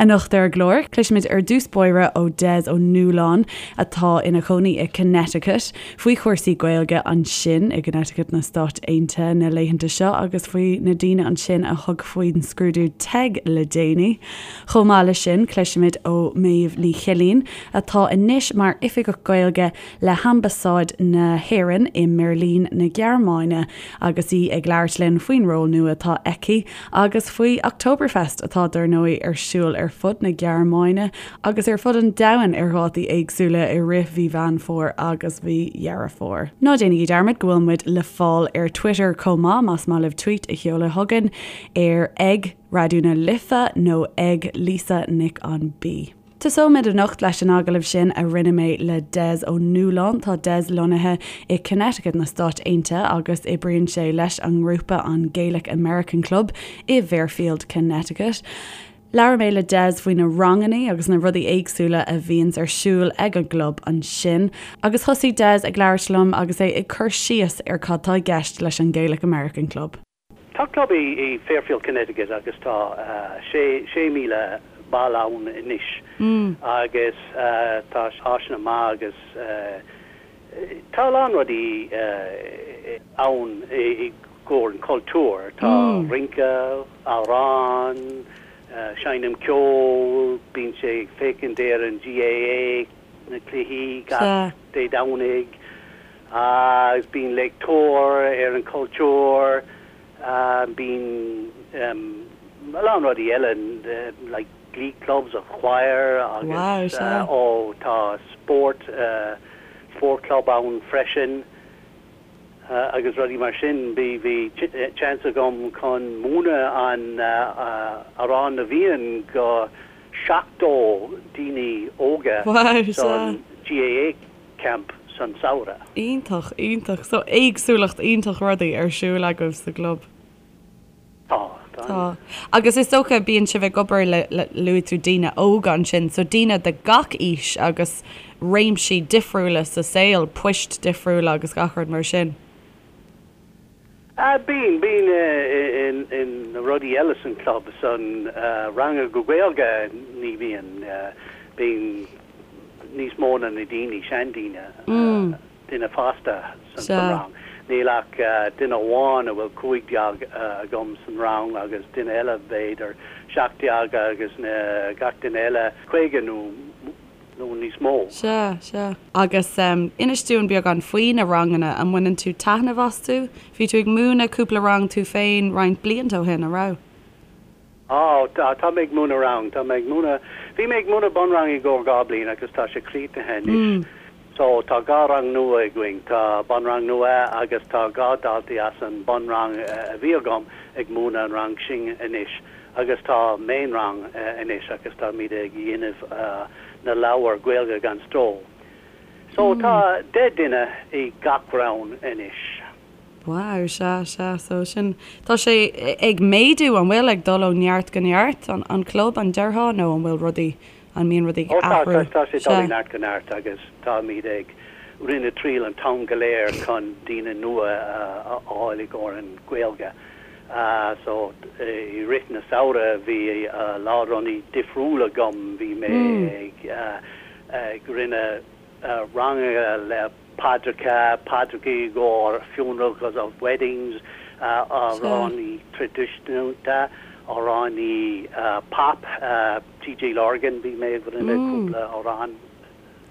Anocht ar an gclár, cloisfimid ar dtús báire ó Des Ó Nualláin, atá ina chónaí i Connecticut, faoi chúrsaí Gaeilge ansin i gConnecticut na Stát Aontaithe na laethanta seo agus faoi na daoine ansin a thug faoin scrúdú TEG le déanaí. Chomh maith leis sin, cloisfimid ó Méabh Ní Chillín, atá anois mar Oifigeach Gaeilge le hAmbasáid na hÉireann i mBeirlín na Gearmáine agus í ag labhairt linn faoin ról nua atá aici agus faoi Oktoberfest atá dar ndóigh ar siúl ar fud na Gearmáine agus ar fud an domhain ar dhátaí éagsúla i rith mhí Mheán Fómhair agus mhí Dheireadh Fómhair. Ná déanaigí dearmad go bhfuil muid le fáil ar Twitter chomh maith más maith libh tweet a sheoladh chugainn ar ag Raidió na Life nó ag Lisa Nic an B. Tosóimid anocht leis an agallamh sin a rinne mé le Des Ó Nualláin. Tá Des lonnaithe i Connecticut na Stáit Aontaithe agus oibríonn sé leis an ngrúpa an Gaelic American Club i bhFairfield, Connecticut. Labhair mé le Des faoi na rangannaí agus na rudaí éagsúla a bhíonns ar siúl ag an gclub ansin. Agus thosaigh Des ag labhairt liom agus é ag cur síos ar cad tá i gceist leis an Gaelic American Club. Tá club i Fairfield, Connecticut agus tá 6,000 ball ann anois agus tá áiseanna maith agus tá a lán rudaí ann i gcomhair an cultúr. Tá rince, amhrán, seinm ceol, bíonn sé ag féachaint ar an GAA, na cluichí gach Dé Domhnaigh. Agus bíonn léachtóir ar an chultúr, bíonn a lán rudaí eile like glee clubs a choir agus ó tá spórt, sport club ann freisin agus rudaí mar sin. Bhí bhí chance agam chun múineadh an Amhrán na bhFiann go 70 daoine óga san GAA. camp san samhradh. Iontach, iontach. So éagsúlacht iontach rudaí ar siúl agaibh sa gclub. Tá, tá. Tá. Agus is dócha bíonn sibh ag obair le, le, luaigh tú daoine óga ansin, so daoine de gach aois agus réimsí difriúla sa saol, poist difriúla agus gach rud mar sin. Ah, bíonn, bíonn in na rudaí eile san club, san ranga go Gaeilge ní bhíonn, bíonn níos mó na na daoine, seandaoine, duine fásta san rang. Níl ach duine amháin a bhfuil 15 agam san rang agus duine eile b'fhéidir 17 agus na gach duine eile 50 nó nó níos mó. Sea, sea. Agus inis dúinn beagán faoi na ranganna, an mbaineann tú taitneamh astu? Bhí tú ag múineadh cúpla rang tú féin roinnt blianta ó shin, an raibh? Á, tá, tá mé ag múineadh rang, tá mé ag múineadh, bhí mé ag múineadh bunrang i gcomhair dhá bliain agus tá sé críochnaithe anois. So tá dhá rang nua againn, tá bunrang nua agus tá dhá daltaí as an bunrang a bhí agam ag múineadh an rang sin anois. Agus tá meánrang anois agus táimid ag dhéanamh na leabhair Gaeilge gan Stró. So tá 10 duine i gach rang anois. Wow, sea, sea. So sin, tá sé ag méadú, an bhfuil, ag dul ó neart go neart, an club, an déarfá, nó an bhfuil rudaí, an mbíonn rudaí ag Ó tá, athrú? tá sé ag dul ó neart go neart agus táimid ag rinne triail an t-am go léir chun daoine nua a fháil i gcomhair an Gaeilge. So, i rith na samhradh bhí a lán rudaí difriúil agam, bhí mé ag ag rinne ranganna le paidreacha, paidreacha i gcomhair funerals agus weddings, amhránaí traidisiúnta, amhránaí pop, TJ Lorgan, bhí mé ag rinne cúpla amhrán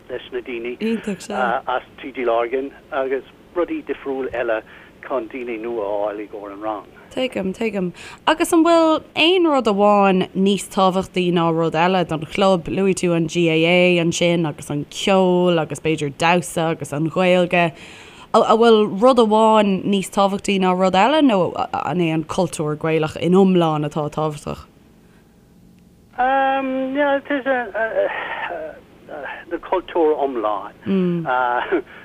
leis na daoine as TJ Lorgan agus rudaí difriúil eile chun daoine nua a fháil i gcomhair an rang. Tuigim, tuigim. Agus an bhfuil aon rud amháin níos tábhachtaí ná rud eile don chlub? Luaigh tú an GAA ansin agus an ceol agus b'fhéidir damhsa agus an Ghaeilge. An bhfuil rud amháin níos tábhachtaí ná rud eile nó an é an cultúr Gaelach in iomlán atá tábhachtach? Um, yeah, it is a, na cultúr iomlán.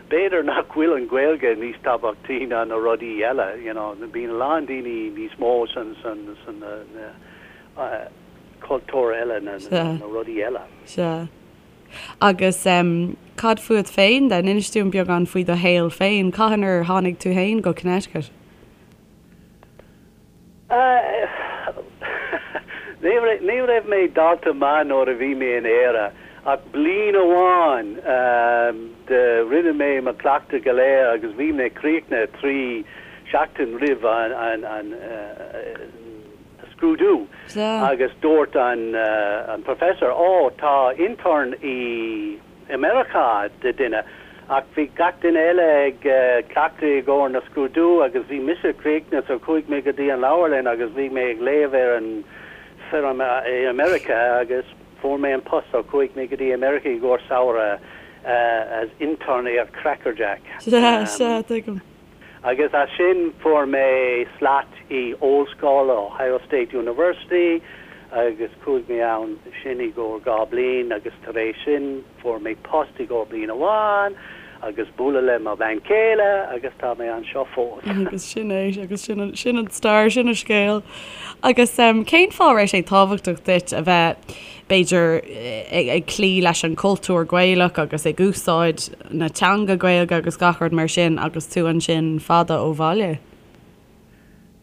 B'fhéidir nach bhfuil an Ghaeilge níos tábhachtaí ná na rudaí eile, you know, bíonn a lán daoine níos mó san, san, san na, na cultúr eile, na, na rudaí eile. Sea. Agus cad fúat féin then? Inis dúinn beagán faoi do shaol féin. Cathain ar tháinig tú féin go Connecticut? Ní raibh mé dalta maith nuair a bhí mé in Éire ach bliain amháin de rinne mé mo cleachtadh go léir agus bhí mé críochnaithe 3 seachtain roimh an scrúdú agus dúirt an professor ó tá intern i i Meiriceá de duine ach bhí gach duine eile ag cleachtadh i gcomhair na scrúdú agus bhí mise críochnaithe so chuaigh mé go dtí an leabharlann agus bhí mé ag léamh ar an foirm i America agus fuair mé an post so chuaigh mé go dtí America i gcomhair samhradh as intern ar Crackerjack. Sea, sea, tuigim. Agus as sin fuair mé slat i ollscoil, Ohio State University, agus chuaigh mé ann sin i gcomhair 2 bliain agus tar éis sin fuair mé post i gcomhair bliain amháin agus bualadh le mo bhean chéile agus tá mé anseo fós. Agus sin é, agus sin an, sin an stair, sin an scéal. Agus cén fáth a raibh sé tábhachtach duit a bheith, b'fhéidir, ag cloí leis an chultúr Gaelach agus ag úsáid na teanga Gaeilge agus gach rud mar sin agus tú ansin fada ó bhaile?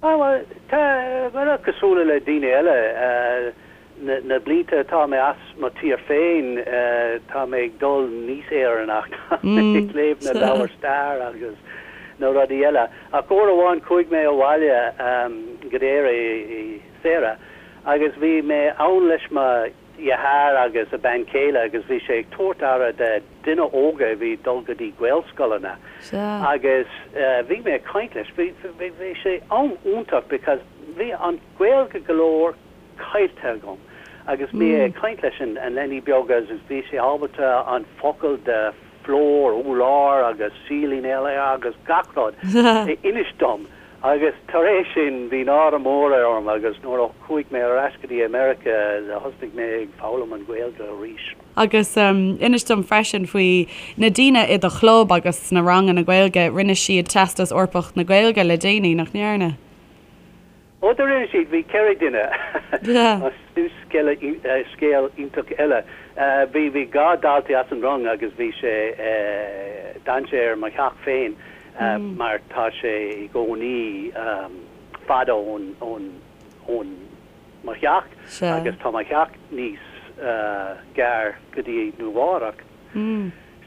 Á, bhuel, tá, bhuel, cosúil le daoine eile, na blianta atá mé as mo tír féin, tá mé ag dul níos Éireannach, tá mé ag léamh na leabhair stair agus na rudaí eile. Ach uair amháin chuaigh mé abhaile go dtí Éire i samhradh agus bhí mé ann leis mo dheartháir agus a bean chéile agus bhí sé ag tabhairt aire de duine óga a bhí ag dul go dtí Gaelscoileanna agus bhí mé ag caint leis, bhí bhí sé am iontach because bhí an Gaeilge go leor caillte agam agus bhí mé ag caint leis an an leanaí beag agus bhí sé ábalta an focal de floor, urlár agus ceiling eile agus gach rud a inis dom. Agus tar éis sin, bhí náire mór orm agus nuair a chuaigh mé ar ais go dtí America, thosnaigh mé ag foghlaim an Ghaeilge arís. Agus inis dom freisin faoi na daoine i do chlub agus sna ranganna Gaeilge, rinne siad Teastas Eorpach na Gaeilge le déanaí, nach ndearna? Ó do rinne siad, bhí 4 duine. Sin scéal iontach eile. Bhí bhí 2 daltaí as an rang agus bhí sé, d'fhan sé ar mo theach féin mar tá sé i gcónaí fada ón ón ón mo theach agus tá mo theach níos gearr go dtí Nua Eabhrac.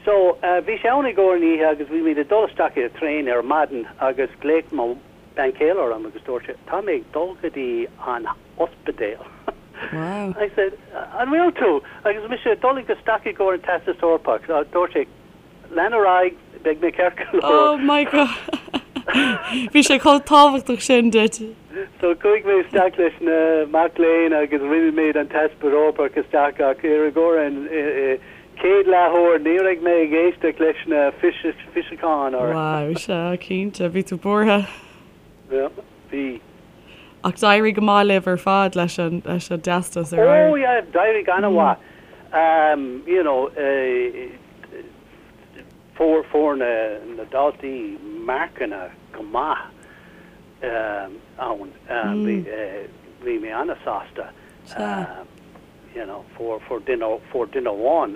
So bhí sé ann i gcomhair an oíche agus bhí muid ag dul isteach ar traein ar maidin agus ghlaoigh mo bean chéile orm agus dúirt sé, tá mé ag dul go dtí an ospidéal. Wow. I said, an bhfuil tú? Agus mise ag dul isteach i gcomhair an Teastas Eorpach. Dúirt sé, lean ar aghaidh, beidh mé ceart go leor. Oh my God. Bhí sé chomh tábhachtach sin duit. So chuaigh mé isteach leis na mac léinn agus rinne muid an Teastas Eorpach isteach ach ar i gcomhair an chéad leathuair ní raibh mé ag éisteacht leis na físeacháin or. Wow, sea, cinnte, bhí tú buartha. Yeah, bhí. Ach d'éirigh go maith libh ar fad leis an leis an dteastas ar Oh yeah, d'éirigh an-mhaith. You know, fuair fuair na na daltaí marcanna go maith ann. Bhí bhí mé an-sásta. Sea. You know, fuair, fuair duine, fuair duine amháin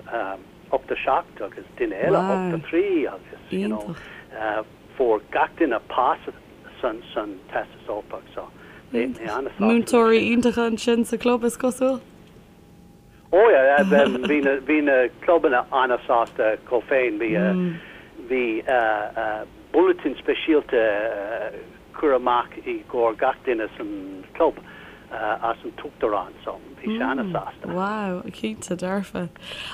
87 agus duine eile 83 agus, you know, fuair gach duine pas san, san Teastas Eorpach so bhí mé an-sásta leis sin. Múinteoirí iontacha ansin sa chlub is cosúil? Oh yeah, bhí na, bhí na clubanna an-sásta chomh féin, bhí, bhí bulletin speisialta cur amach i gcomhair gach duine san club as an t-uachtarán so bhí sé ana-sásta. Wow, cinnte dearfa.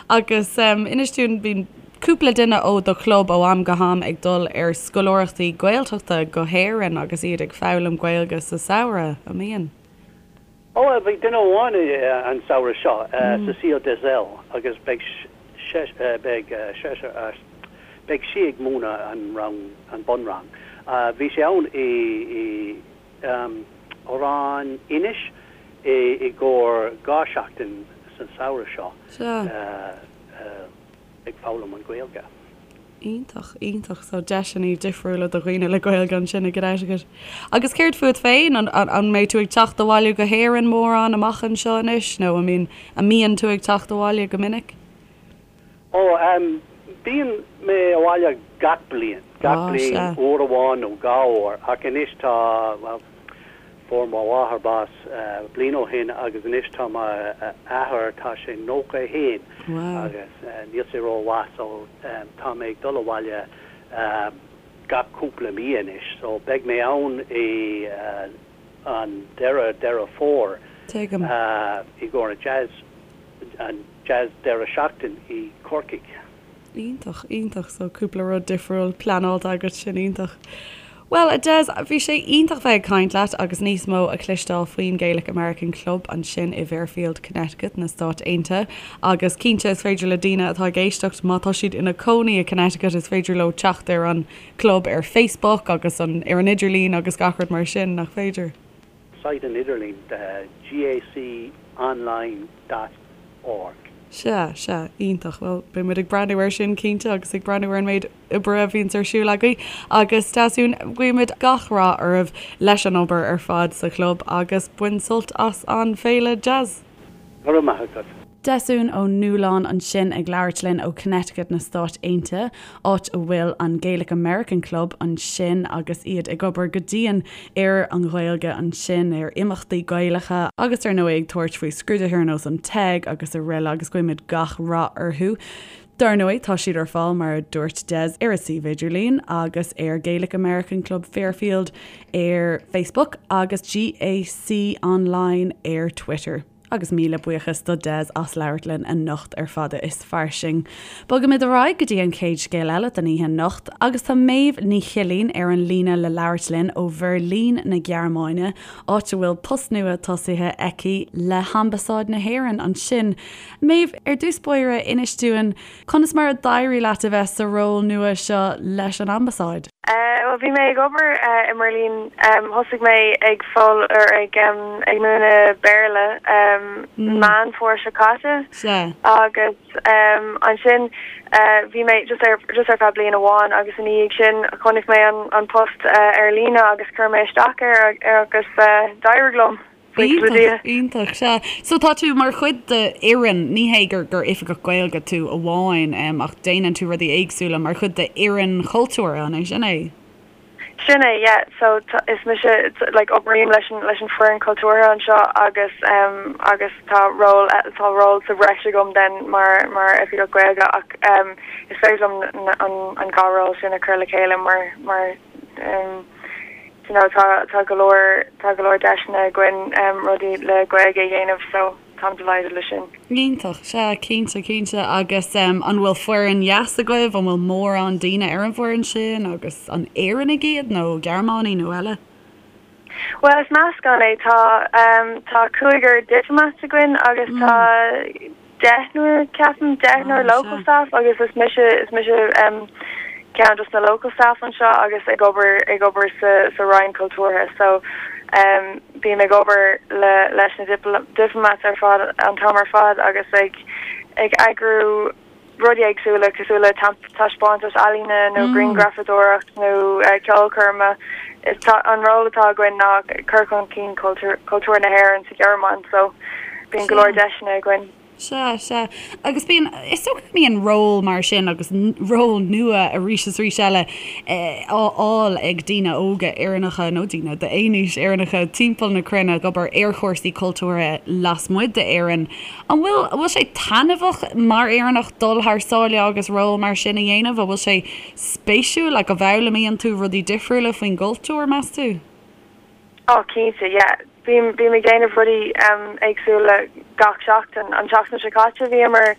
Agus inis dúinn, bíonn cúpla duine ó do chlub ó am go ham ag dul ar scoláireachtaí Gaeltachta go hÉirinn agus iad ag foghlaim Gaeilge sa samhradh, an mbíonn? Ó, bhí duine amháin an samhradh seo, Cecile Desel, agus beidh beidh beidh sí ag múineadh an rang, an bunrang. Bhí sé ann i i Oileán Inis i i gcomhair 2 seachtain san samhradh seo ag foghlaim an Ghaeilge. Iontach, iontach. So deiseanna difriúla do dhaoine le Gaeilge ansin i gConnecticut. Agus céard fút féin? An, an, an mbeidh tú ag teacht abhaile go hÉirinn mórán amach anseo anois nó an mbíonn, an mbíonn tú ag teacht abhaile go minic? Ó, em, bíonn mé abhaile gach bliain, gach bliain, uair amháin nó dhá uair ach anois tá, bhuel,. Fuair mo mháthair bás bliain ó shin agus anois tá m'athair, tá sé 91 agus níl sé rómhaith so tá mé ag dul abhaile gach cúpla mí anois so beidh mé ann i an deireadh Deireadh Fómhair i gcomhair an jazz, an jazz deireadh seachtain i Corcaigh. Iontach, iontach. So cúpla rud difriúil pleanáilte agat, sin iontach. Bhuel, a Des, bhí sé iontach bheith ag caint leat agus níos mó a chloisteáil faoin Gaelic American Club ansin i bhFairfield, Connecticut, na Stáit Aontaithe. Agus cinnte is féidir le daoine atá ag éisteacht, má tá siad ina cónaí i Connecticut, is féidir leo teacht ar an club ar Facebook agus an ar an idirlíon agus gach rud mar sin, nach féidir? Site an idirlín, gaconline dot org. Sea, sea, iontach. Bhuel, beidh muid ag breathnú air sin cinnte agus ag breathnú ar an méid oibre a bhíonns ar siúl agaibh. Agus Deasún, guímid gach rath oraibh leis an obair ar fad sa chlub agus bain sult as an féile jazz! Go raibh maith agat. Deasún Ó Nualláin ansin ag labhairt linn ó Connecticut na Stáit Aontaithe, áit a bhfuil an Gaelic American Club ansin agus iad ag obair go dian ar an Ghaeilge ansin, ar imeachtaí Gaelacha agus ar ndóigh ag tabhairt faoi scrúduithe ar nós an TEG agus araile agus guímid gach rath orthu. Dar ndóigh tá siad ar fáil mar a dúirt Des ar a suíomh idirlín agus ar Gaelic American Club Fairfield ar Facebook agus GAC Online ar Twitter. Agus míle buíochas do Des as labhairt linn anocht ar Fada is Fairsing. Bogaimid ar aghaidh go dtí an chéad scéal eile don oíche anocht agus tá Méabh Ní Chillín ar an líne le labhairt linn ó Bheirlín na Gearmáine, áit a bhfuil post nua tosaithe aici le hAmbasáid na hÉireann ansin. Méabh, ar dtús báire, inis dúinn conas mar a d'éirigh leat a bheith sa ról nua seo leis an Ambasáid? Bhuel, bhí mé ag obair i mBeirlín. Thosaigh mé ag fogh or ag ag múineadh Béarla Meán Fómhair seo caite. Sea. Agus ansin bhí mé just ar just ar feadh bliain amháin agus ina dhiaidh sin chonaic mé an an post ar líne agus chuir mé isteach air agus d'éirigh liom. Iontach, iontach, sea. So tá tú mar chuid de fhoireann, ní hé gur gur oifigeach Gaeilge tú amháin, ach déanann tú rudaí éagsúla mar chuid de fhoireann chultúrtha, an é sin é? Sin é, yeah. So is mise, like, oibrím leis an leis an foireann cultúrtha anseo agus agus tá ról tá ról sa bhreis agam then mar mar oifigeach Gaeilge ach is féidir liom an an dhá ról sin a chur le chéile mar mar you know tá tá go leor tá go leor deiseanna againn rudaí le Gaeilge a dhéanamh so táim delighted le sin. Iontach, sea, cinnte, cinnte. Agus an bhfuil foireann dheas agaibh, an bhfuil mórán daoine ar an bhfoireann sin agus an Éireannaigh iad nó Gearmánaigh nó eile? Bhuel is meascán é, tá tá cúigear diplomats againn agus tá deichniúr, ceapaim, deichniúr local staff agus is mise, is mise ceann dos na local staff anseo agus ag obair, ag obair sa, sa Roinn Cultúrtha so bím ag obair le, leis na diplomats ar fad, an t-am ar fad agus ag, ag eagrú rudaí éagsúla cosúil le taispeántas ealaíne nó grianghrafadóireacht nó ceolchoirme. Is tá, an ról atá againn ná cur chun cinn cultúr, cultúr na hÉireann sa Ghearmáin so bíonn go leor deiseanna againn. Sea, sea. Agus bíonn, is dócha go mbíonn ról mar sin agus ról nua arís is arís eile á fháil ag daoine óga Éireannacha nó daoine d'aon aois Éireannacha timpeall na cruinne ag obair ar chúrsaí cultúrtha lasmuigh d'Éirinn. An bhfuil, an bhfuil sé taitneamhach mar Éireannach dul thar sáile agus ról mar sin a dhéanamh? An bhfuil sé spéisiúil? Like, an bhfoghlaimíonn tú rudaí difriúla faoin gcultúr, meas tú? Oh cinnte, yeah. Bím, bím ag déanamh rudaí éagsúla gach seachtain. An tseachtain seo caite bhíomar,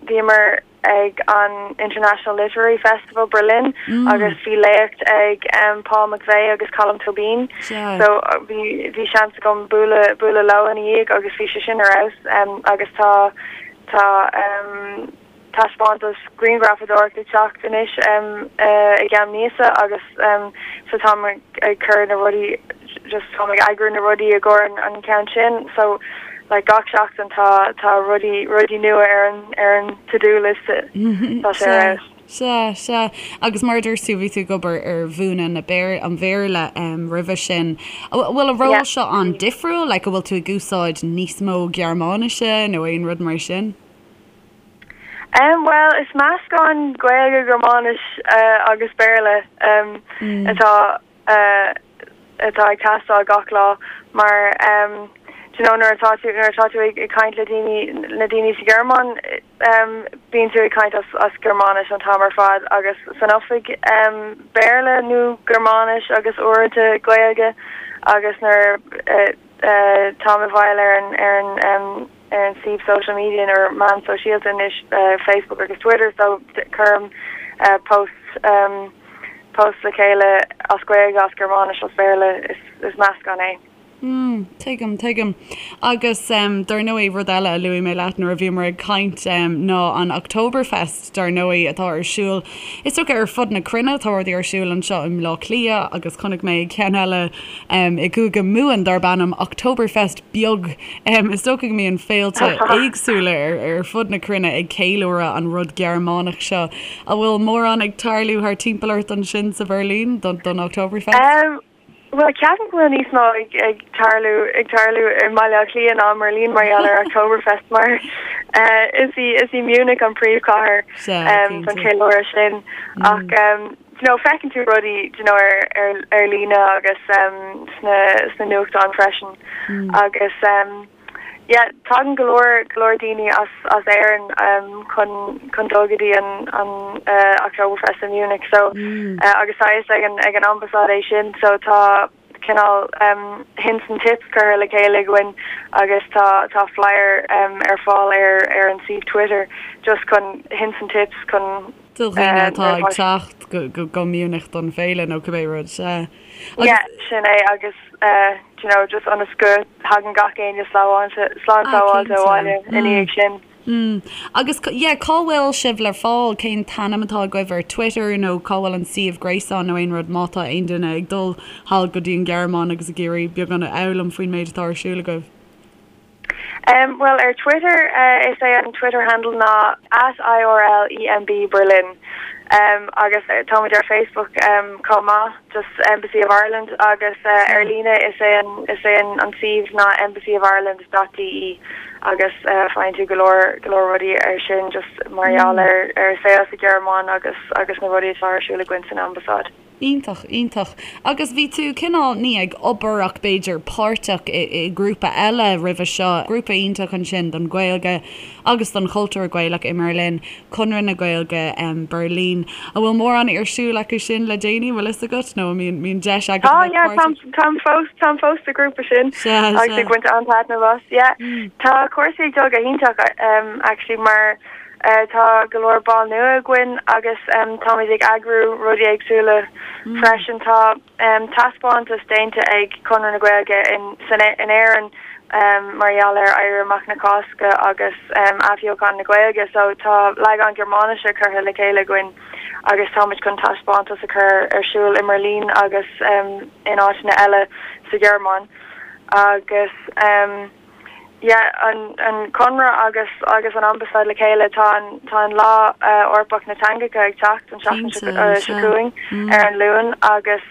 bhíomar ag an International Literary Festival Berlin agus bhí léacht ag Paul McVeigh agus Colm Tóibín. So bhí, bhí seans agam bualadh, bualadh leo ina dhiaidh agus bhí sé sin ar fheabhas. Agus tá, tá. taispeántas grianghrafadóireachta ag teacht anois i gceann míosa agus so táim ag cur na rudaí just táim ag eagrú na rudaí i gcomhair an ceann sin so like gach seachtain tá tá rudaí rudaí nua ar an ar an to do list tá sé ar fheabhas. Sea, sea. Agus mar a dúirt tú, bhí tú ag obair ar mhúineadh na Béar, an Bhéarla roimhe sin. An bhfuil an ról seo an-difriúil? Like, an bhfuil tú ag úsáid níos mó Gearmáinise nó aon rud mar sin? Bhuel, is meascán Gaeilge, Gearmáinis agus Béarla atá. atá ag teastáil gach lá mar do you know nuair atá tú nuair atá tú ag caint le daoine na daoine sa Ghearmáin bíonn tú ag caint as as Gearmáinis an t-am ar fad agus san oifig Béarla nó Gearmáinis agus uaireanta Gaeilge agus nuair táim i bhfeighil ar an ar an ar an suíomh social media nó meán sóisialta anois Facebook agus Twitter so cuirim post post le chéile as Gaeilge, as Gearmáinis, as Béarla, is is meascán é. Mm, tuigim, tuigim. Agus dar ndóigh, rud eile a luaigh mé leat nuair a bhíomar ag caint ná an Oktoberfest, dar ndóigh, atá ar siúl, is dócha ar fud na cruinne, tá rudaí ar siúl anseo i mBleá Cliath agus chonaic mé ceann eile i gCúige Mumhan darb ainm Oktoberfest Beag. Is dócha go mbíonn féilte éagsúla ar fud na cruinne ag ceiliúradh an rud Gearmánach seo. An bhfuil mórán ag tarlú thar timpeall ort ansin sa Bheirlín don Oktoberfest? Bhuel, ceapaim go bhfuil níos mó ag tarlú ag tarlú i mBaile Átha Cliath ná i mBeirlín mar gheall ar Oktoberfest mar is í is í Munich an príomhchathair don cheiliúradh sin ach you know feiceann tú rudaí you know ar ar ar líne agus sna sna nuachtáin freisin agus yeah tagann go leor go leor daoine as as Éirinn chun chun dul go dtí an an Oktoberfest i Munich so agus tá fhios ag an ag an ambasáid é sin so tá cineál hints and tips curtha le chéile againn agus tá tá flyer ar fáil ar ar an suíomh Twitter just chun hints and tips chun Do dhaoine atá ag teacht go go Munich don féile nó cibé rud, sea. Yeah, sin é agus do you know just ionas go thagann gach éinne slán slán sábháilte abhaile ina dhiaidh sin. Mm. Agus yeah, cá bhfuil sibh le fáil? Cén t-ainm atá agaibh ar Twitter nó cá bhfuil an suíomh gréasáin nó aon rud má tá aon duine ag dul thall go dtí an Ghearmáin agus ag iarraidh beagán a fhoghlaim faoin méid atá ar siúl agaibh? Um, bhuel ar Twitter uh, is é an Twitter handle ná at IRLEMB Berlin. Um, agus táimid ar Facebook um, chomh maith, just Embassy of Ireland agus uh, ar líne is é an, is é an, an suíomh ná embassyofIreland dot de agus uh, faigheann tú go leor go leor rudaí ar sin just mar gheall ar ar saol sa Ghearmáin agus agus na rudaí atá ar siúl againn san ambasáid. Iontach, iontach. Agus bhí tú cineál, ní ag obair ach b'fhéidir páirteach i i grúpa eile roimhe seo, grúpa iontach ansin don Ghaeilge agus don chultúr Gaelach i mBerlin, Conradh na Gaeilge Berlin. An bhfuil mórán ar siúl acu sin le déanaí, an bhfuil fhios agat, nó an mbíonn mbíonn deis agat a bheith yeah, páirteach? Táim fós, táim fós sa ghrúpa sin Sea, agus ag baint an-taitneamh as. Yeah. Tá cúrsaí ag dul go hiontach actually mar Tá go leor ball nua againn agus táimid ag eagrú rudaí éagsúla freisin. Tá taispeántas déanta ag Conradh na Gaeilge in Éirinn mar gheall ar Éirí Amach na Cásca agus athbheochan na Gaeilge so tá leagán Gearmáinise curtha le chéile againn agus táimid chun taispeántas a chur ar siúl i mBeirlín agus in áiteanna eile sa Ghearmáin agus Yeah, an an Conradh agus agus an Ambasáid le chéile, tá an tá an Lá Eorpach na Teangacha ag teacht an tseachtain seo Cinnte, seo chugainn ar an Luan agus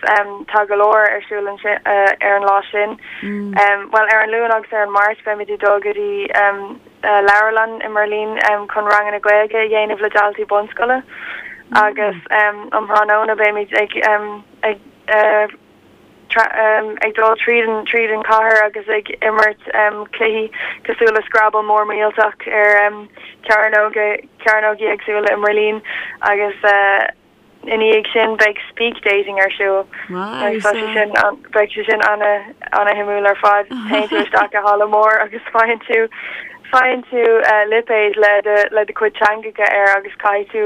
tá go leor ar siúl ansin ar an lá sin. Bhuel ar an Luan agus ar an Máirt beimid ag dul go dtí leabharlann i mBeirlín chun ranganna Gaeilge a dhéanamh le daltaí bunscoile agus um thráthnóna beimid ag ag ag dul tríd an tríd an chathair agus ag imirt cluichí cosúil le Scrabble mór millteach ar cearnóga cearnógaí éagsúla i mBeirlín agus ina dhiaidh sin beidh speak dating ar siúl agus tá sé sin beidh sé sin ana ana shuimiúil ar fad. Téann tú isteach i halla mór agus faigheann tú faigheann tú lipéad le do le do chuid teangacha air agus caithfidh tú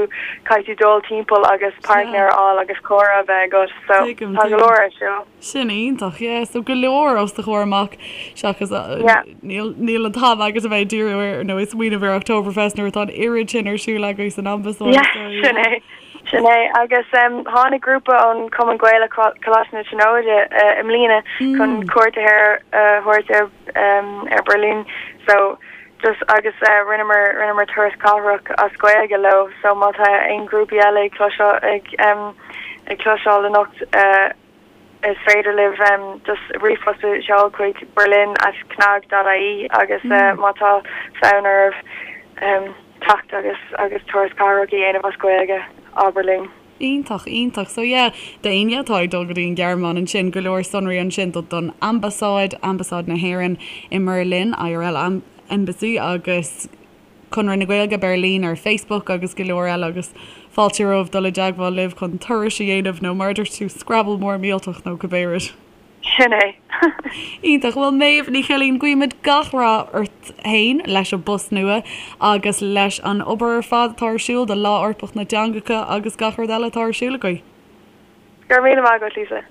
caithfidh tú dul timpeall agus páirtnéir a fháil agus comhrá a bheith agat. So, Tuigim, tá go leor ar siúl. Sin iontach, yeah. So go leor os do chomhair amach seachas Yeah. níl níl an t-am agat a bheith ag díriú ar nó ag smaoineamh ar Oktoberfest nuair atá an oiread sin ar siúl agaibh san ambasáid. Yeah, So, sin yeah. é. Sin é. Agus um, tháinig grúpa ón Cumann Gaelach Coláiste na Tríonóide uh, i mbliana chun cuairt a thabhairt uh, thabhairt ar um, ar Berlin. So just agus uh, rinneamar rinneamar turas cathrach as Gaeilge leo. So má tá aon grúpaí eile ag cloiseáil ag um, ag cloiseáil anocht uh, is féidir libh um, just ríomhphost a sheoladh chuig berlin at cnag dot ie agus uh, má tá fonn oraibh um, teacht agus agus turas cathrach a dhéanamh as Gaeilge abair linn. Iontach, iontach. So yeah, d'éinne atá ag dul go dtí an Ghearmáin ansin, go leor sonraí ansin do don Ambasáid, Ambasáid na hÉireann i mBerlin, IRL Embassy, agus Conradh na Gaeilge Berlin ar Facebook agus go leor eile agus fáilte romhaibh dul i dteagmháil libh chun turais a dhéanamh nó mar a dúirt tú, Scrabble mór millteach nó cibé rud. Sin é. Iontach. Bhuel, Méabh Ní Chillín, guímid gach rath ort féin leis an bpost nua agus leis an obair ar fad atá ar siúl do Lá Eorpach na dTeangacha agus gach rud eile atá ar siúl agaibh. Go raibh míle maith agat, Lisa.